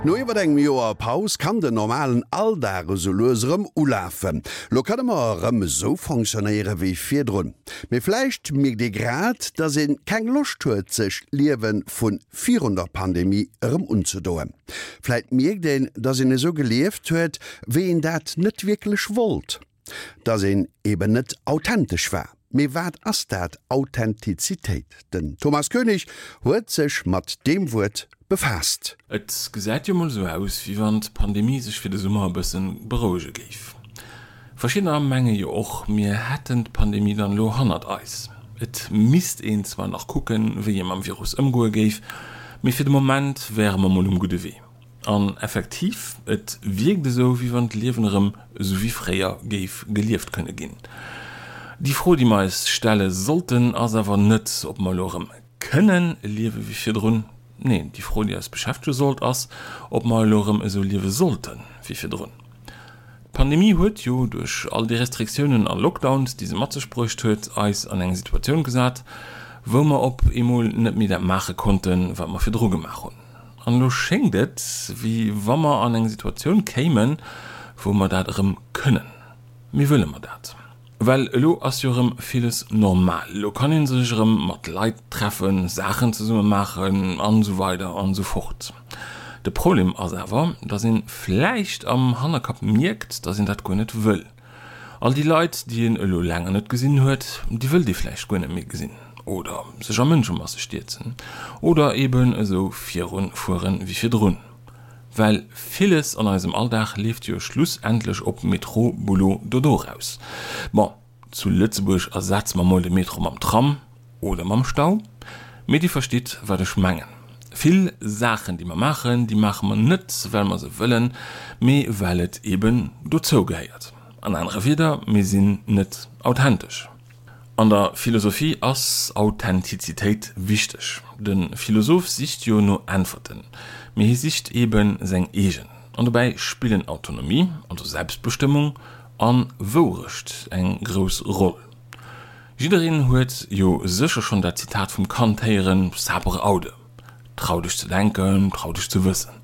No iwwer engem Joer Paus kann den normalen Alldag esou lues erëm ulafen. Lo kënne mer erëm esou fonctionnéiere wéi virdrun. Mee vläicht mierkt ee grad, dass ee keng Loscht huet, sech d'Liewe vu virun der Pandemie erëm unzedoen. Vläit mierkt een, dass een esou gelieft huet, wéi een dat net wierklech wollt. Dass een eben net authentesch war. Mee wat ass dat, Authentizitéit? Den Thomas Koenig huet sech mat deem Wuert befaasst. Et gesäit jo mol esou aus, wéi wann d'Pandemie sech fir de Summer e bëssen berouege géif. Verschiddener menge jo och, mir hätten d'Pandemie dann elo hannert eis. Et misst een zwar nach kucken, wéi ee mam Virus ëmgoe géif, mee fir de Moment wäre mer mol um gudde Wee. An effektiv, et wierkt esou, wéi wann d'Liewen erëm esou wéi fréier géif gelieft kënne ginn. Déi Fro, déi mer eis stelle sollten, ass awer net, ob mer elo erëm kënne liewe wéi virdrun. Neen, déi Fro, déi eis beschäftege sollt, ass, ob mer elo erëm esou liewe sollte wéi virdrun. D'Pandemie huet jo, duerch all déi Restriktiounen a Lockdowns, déi se mat sech bruecht huet, eis an eng Situatioun gesat, wou mer op eemol net méi dat maache konnten, wat mer virdru gemaach hunn. An elo schéngt et, wéi wa mer an eng Situatioun kéimen, wou mer dat erëm kënnen. Mee wëlle mer dat? Well elo ass jo erëm villes normal. Elo kann ee sech erëm mat Leit treffen, Saachen zesumme maachen an esou weider an esou fort. De Problem ass awer, dass ee vläicht am Hannerkapp mierkt, dass een dat guer net wëll. All déi Leit, déi een elo länger net gesinn huet, déi wëllt ee vläicht guer net méi gesinn oder sech a Mënschemasse stierzen oder eben esou virun fueren wéi virdrun. Well villes an eisem Alldag leeft jo schlussendlech op Métro, Boulot, Dodo raus. Bon, zu Lëtzebuerg ersetze mer mol de Metro mam Tram oder mam Stau, mee Dir verstitt wat ech mengen. Vill Saachen déi mer maachen, déi maache mer net well mer se wëllen, mee well et eben dozou gehéiert. An anere Wieder, mir sinn net authentesch. An der Philosophie ass Authentizitéit wichteg. De Philosoph sicht jo no Äntwerten, mee hie sicht eben seng eegen. An dobäi spillen Autonomie, also Selbstbestëmmung, a Wourecht eng grouss Roll. Jiddereen huet jo sécher schonn dat Zitat vum Kant héieren, Sapere aude, trau dech ze denken, trau dech ze wëssen.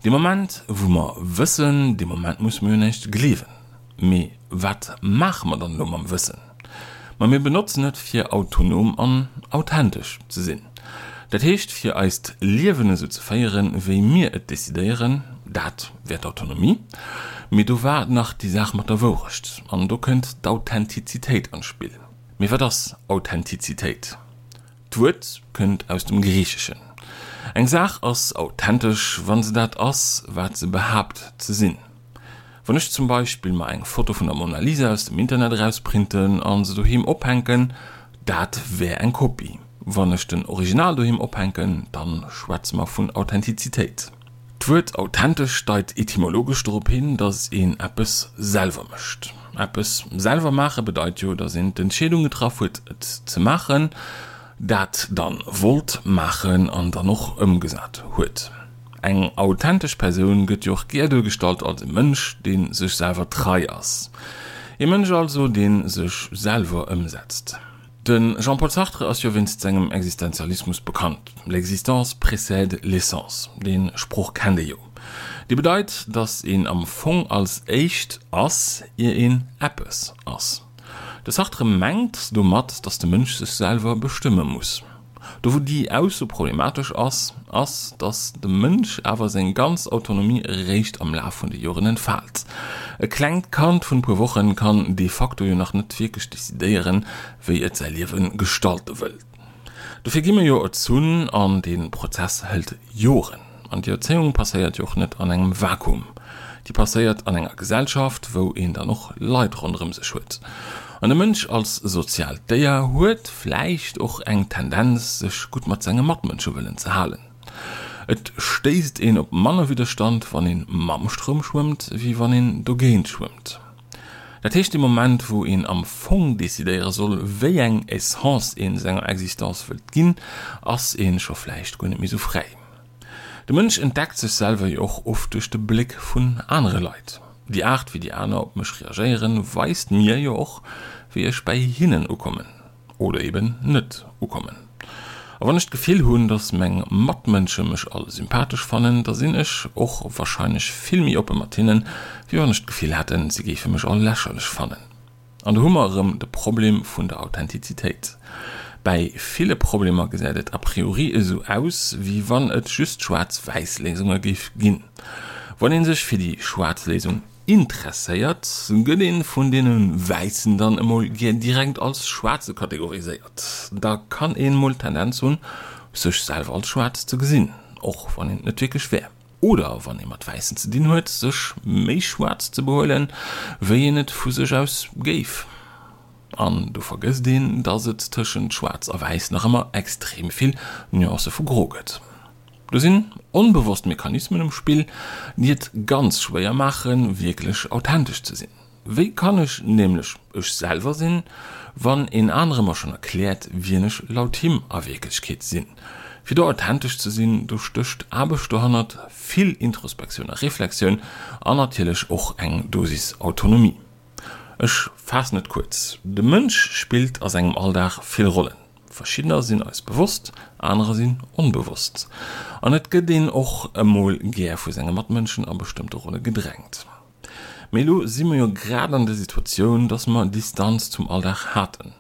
Dee Moment wou mer wëssen, dee Moment musse mer jo näischt gleewen. Mee wat maache mer dann elo mam Wëssen? Ma mir benotzen et fir autonom an authentesch ze sinn. Dat heescht fir eist Liewen esou ze féieren, wéi mir et decidéieren. Dat wär d'Autonomie. Mee do war nach déi Saach mat der Wourecht an do kënnt d'Authentizitéit an d'Spill. Mee wat ass Authentizitéit? D'Wuert kënnt aus dem Griicheschen. Eng Saach ass authentesch, wa se dat ass, wat se behaapt ze sinn. Wann ech zum Beispill mer eng Foto vun der Mona Lisa aus dem Internet erausprinten an se doheem ophänken, dat wär eng Kopie. Wann ech den Original doheem ophänken, dann schwätze mer vun Authentizitéit. D'Wuert authentesch deit etymologesch dorop hin, dass een eppes selwer mécht. Eppes selwer maache bedeit jo, dass een d'Entscheedung getraff huet et ze maachen, dat dann wollt maachen an dann och ëmgesat huet. Eng authentesch Persoun gëtt jo och gär duergestallt als e Mënsch, dee sech selwer trei ass. E Mënsch also, dee sech selwer ëmsetzt. De Jean-Paul Sartre ass jo wéinst sengem Existenzialismus bekannt, L'existence précède l'essence, dee Sproch kennt ee jo. Dee bedeit, datt een am Fong als éischt ass, ier een eppes ass. De Sartre mengt domat, datt de Mënsch sech selwer bestëmme muss. Do wou déi Ausso problematesch ass, ass, datt de Mënsch awer seng ganz Autonomie eréischt am Laf vun de Joren entfaalt. E klengt Kand vun e puer Wochen kann de facto jo nach net wierklech decidéieren, wéi et säi Liewe gestalte wëll. Dofir gi mir jo erzunn an dee Prozess hëlt Joren. An déi Erzéiung passéiert jo och net an engem Vakuum. Déi passéiert an enger Gesellschaft, wou een dann och Leit ronderëm sech huet. An de Mënsch als soziaalt Déier huet vläicht och eng Tendenz, sech gutt mat senge Matmënsche wëllen ze halen. Et stéisst een op manner Widderstand, wann ee mam Stroum schwëmmt, wéi wann een dogéint schwëmmt. Dat heescht, dee Moment, wou een am Fong decidéiere soll, wéi eng Essence ee senger Existence wëllt ginn, ass ee scho vläicht guer net méi sou fräi. De Mënsch entdeckt sech selwer jo och oft duerch de Bléck vun anere Leit. Déi Aart wéi déi aner op mech reagéieren, weist mir jo och wéi ech bäi hinnen ukommen oder eben net ukommen. A wann ech d'Gefill hunn, dass meng Matmënsche mech all sympathesch fannen, da sinn ech och warscheinlech vill méi oppe mat hinnen, wéi wann ech d'Gefill hätten, si géife mech all lächerlech fannen. An do hu mer erëm de Problem vun der Authentizitéit. Bäi ville Problemer gesäit et a priori esou aus, wéi wann et just schwaarz-wäiss Léisunge géif ginn. Wann ee sech fir déi schwaarz Léisung Interesséiert, gëtt een vun deene Wäissen dann emol gär direkt als Schwaarze kategoriséiert. Da kann een mol d'Tendenz hunn, sech selwer als schwaarz ze gesinn, och wann een et net wierklech wär. Oder wann ee mat Wäissen ze dinn huet, sech méi schwaarz ze behuelen, wéi een et vu sech aus géif. An do vergësst een, dass et tëschent schwaarz a wäiss nach ëmmer extrem vill Nuancë vu gro gëtt. Do sinn onbewosst Mechanismen um Spill, déi et ganz schwéier maachen, wierklech authentesch ze sinn. Wéi kann ech nämlech ech selwer sinn, wann een anere mer schonn erkläert, wien ech laut him a Wierklechkeet sinn? Fir do authentesch ze sinn, do stécht Aarbecht dohannert, vill Introspektioun a Reflexioun an natierlech och eng Dosis Autonomie. Ech faassen et kuerz, De Mënsch spillt a sengem Alldag vill Rollen. Verschiddener sinn eis bewosst, anerer sinn onbewosst. An et gëtt een och emol gär vu senge Matmënschen a bestëmmte Rolle gedrängt. Mee elo si mer jo grad an der Situatioun, dass mer Distanz zum Alldag haten.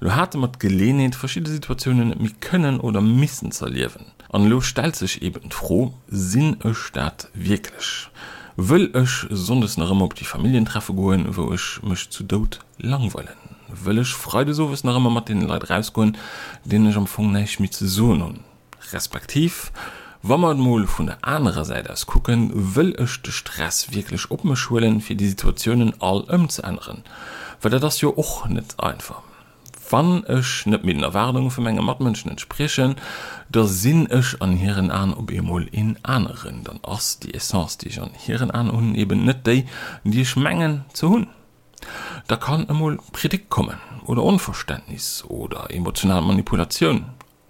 Elo hate mer d'Geleenheet, verschidde Situatiounen net méi kënnen oder missen z'erliewen. An elo stellt sech eben d'Fro, Sinn ech dat wierklech? Wëll ech sonndes nach ëmmer op déi Familljentreffe goen, wou ech mech zu Doud langweilen? Wëll ech freides owes nach ëmmer mat deene Leit erausgoen, deenen ech am Fong näischt méi ze soen hunn? Respektiv, wa mer et mol vun der anerer Säit aus kucken, wëll ech de Stress wierklech op mech huelen, fir déi Situatiounen all ëmzeänneren? Well dat ass jo och net einfach. Wann ech net méi den Erwaardunge vu menge Matmënschen entspriechen, da sinn ech an hiren Aen op eemol een aneren. Dann ass déi Essence, déi ech an hiren Aen hunn, eben net déi, déi ech mengen ze hunn. Da kann emol Kritik kommen oder Onverständnis oder emotional Manipulatioun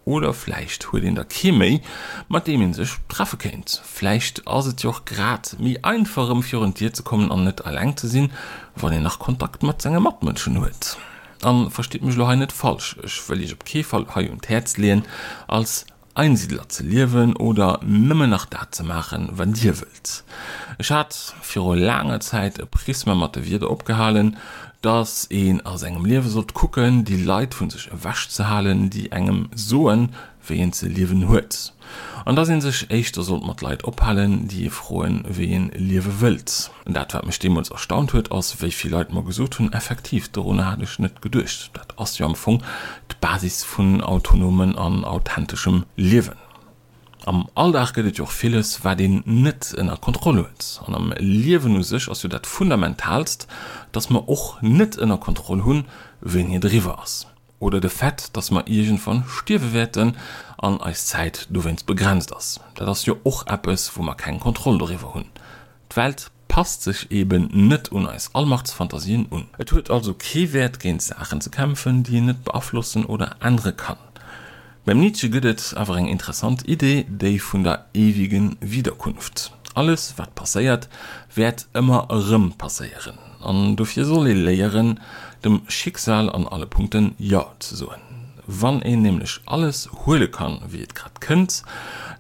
Oder vläicht huet een da kee méi, mat deem ee sech treffe kéint. Vläicht ass et jo och grad méi einfach erëm virun d'Dier ze kommen an net eleng ze sinn, wann een nach Kontakt mat senge Matmënschen huet. A verstitt mech elo hei net falsch, ech wëll iech op kee Fall hei un d'Häerz leeën, als Einsiedler ze liewen oder nëmmen nach dat ze maachen, wat dir wëllt. Ech hat viru laanger Zäit e Prisma mat de Wierder opgehalen, dass een a sengem Liewe sollt kucken, déi Leit vu sech ewech ze halen, déi engem soen, wéi een ze liewen huet. An dass een sech éischter sollt mat Leit ophalen, déi ee froen, wéi een liewe wëllt. Dat, wat mech deemools erstaunt huet, ass, wéi vill Leit mer gesot hunn, effektiv, dorunner hat ech net geduecht. Dat ass jo am Fong d'Basis vun autonomen an authenteschem Liewen. Am Alldag gëtt et jo och villes, wat een net ënner Kontroll huet. An am Liewen u sech ass jo dat Fundamentaalst, dass mer och net ënner Kontroll hunn, wéini et eriwwer ass. Oder de Fait, dass mer iergendwann stierwe wäerten an eis Zäit dowéinst begrenzt ass. Dat ass jo och eppes, wou mer keng Kontroll doriwwer hunn. D'Welt passt sech eben net un eis Allmachtsfantasien un. Et huet also kee Wäert géint Saachen ze kämpfen, déi een net beaflossen oder ännere kann. Beim Nietzsche gëtt et awer eng interessant Idee, déi vun der ewigen Wiederkunft. Alles wat passéiert, wäert ëmmer erëm passéieren. An dofir soll ee léieren, dem Schicksal an alle Punkten Jo ze soen. Wann een nämlech alles huele kann, wéi et grad kënnt,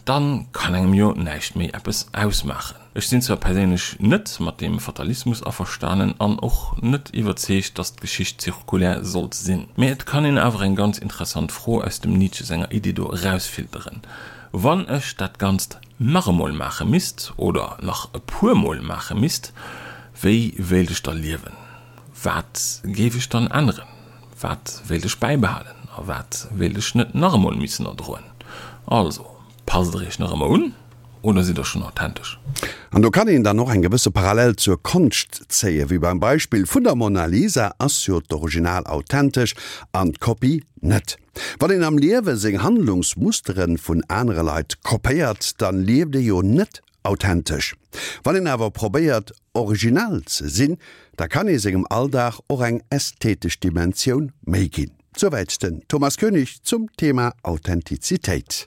dann kann engem jo näischt méi eppes ausmaachen. Ech sinn zwar perséinlech net mat deem Fatalismus averstanen an och net iwwerzeegt, dass d'Geschicht zirkulär sollt sinn, mä et kann een awer eng ganz interessant Fro aus dem Nietzsche senger Idee do erausfilteren, Wann ech dat Ganzt nach emol maache misst, oder nach e puer Mol maache misst, wéi wéilt ech da liewen? Wat géif ech dann änneren? Wat wéilt ech bäibehalen a wat wéilt ech net nach emol missen erdroen? Also, passt der iech nach ëmmer un oder sidd der schonn authentesch? An do kann een dann och eng gewësse Parallel zur Konscht zéien. Wéi beim Beispill vun der Mona Lisa ass jo d'Original authentesch an d'Kopie net. Wann een am Liewe seng Handlungsmusteren vun anere Leit kopéiert, dann lieft ee jo net authentesch. Wann een awer probéiert originell ze sinn, da kann ee sengem Alldag och eng ästhetesch Dimensioun méi ginn. Souwäit den Thomas Koenig zum Thema Authentizitéit.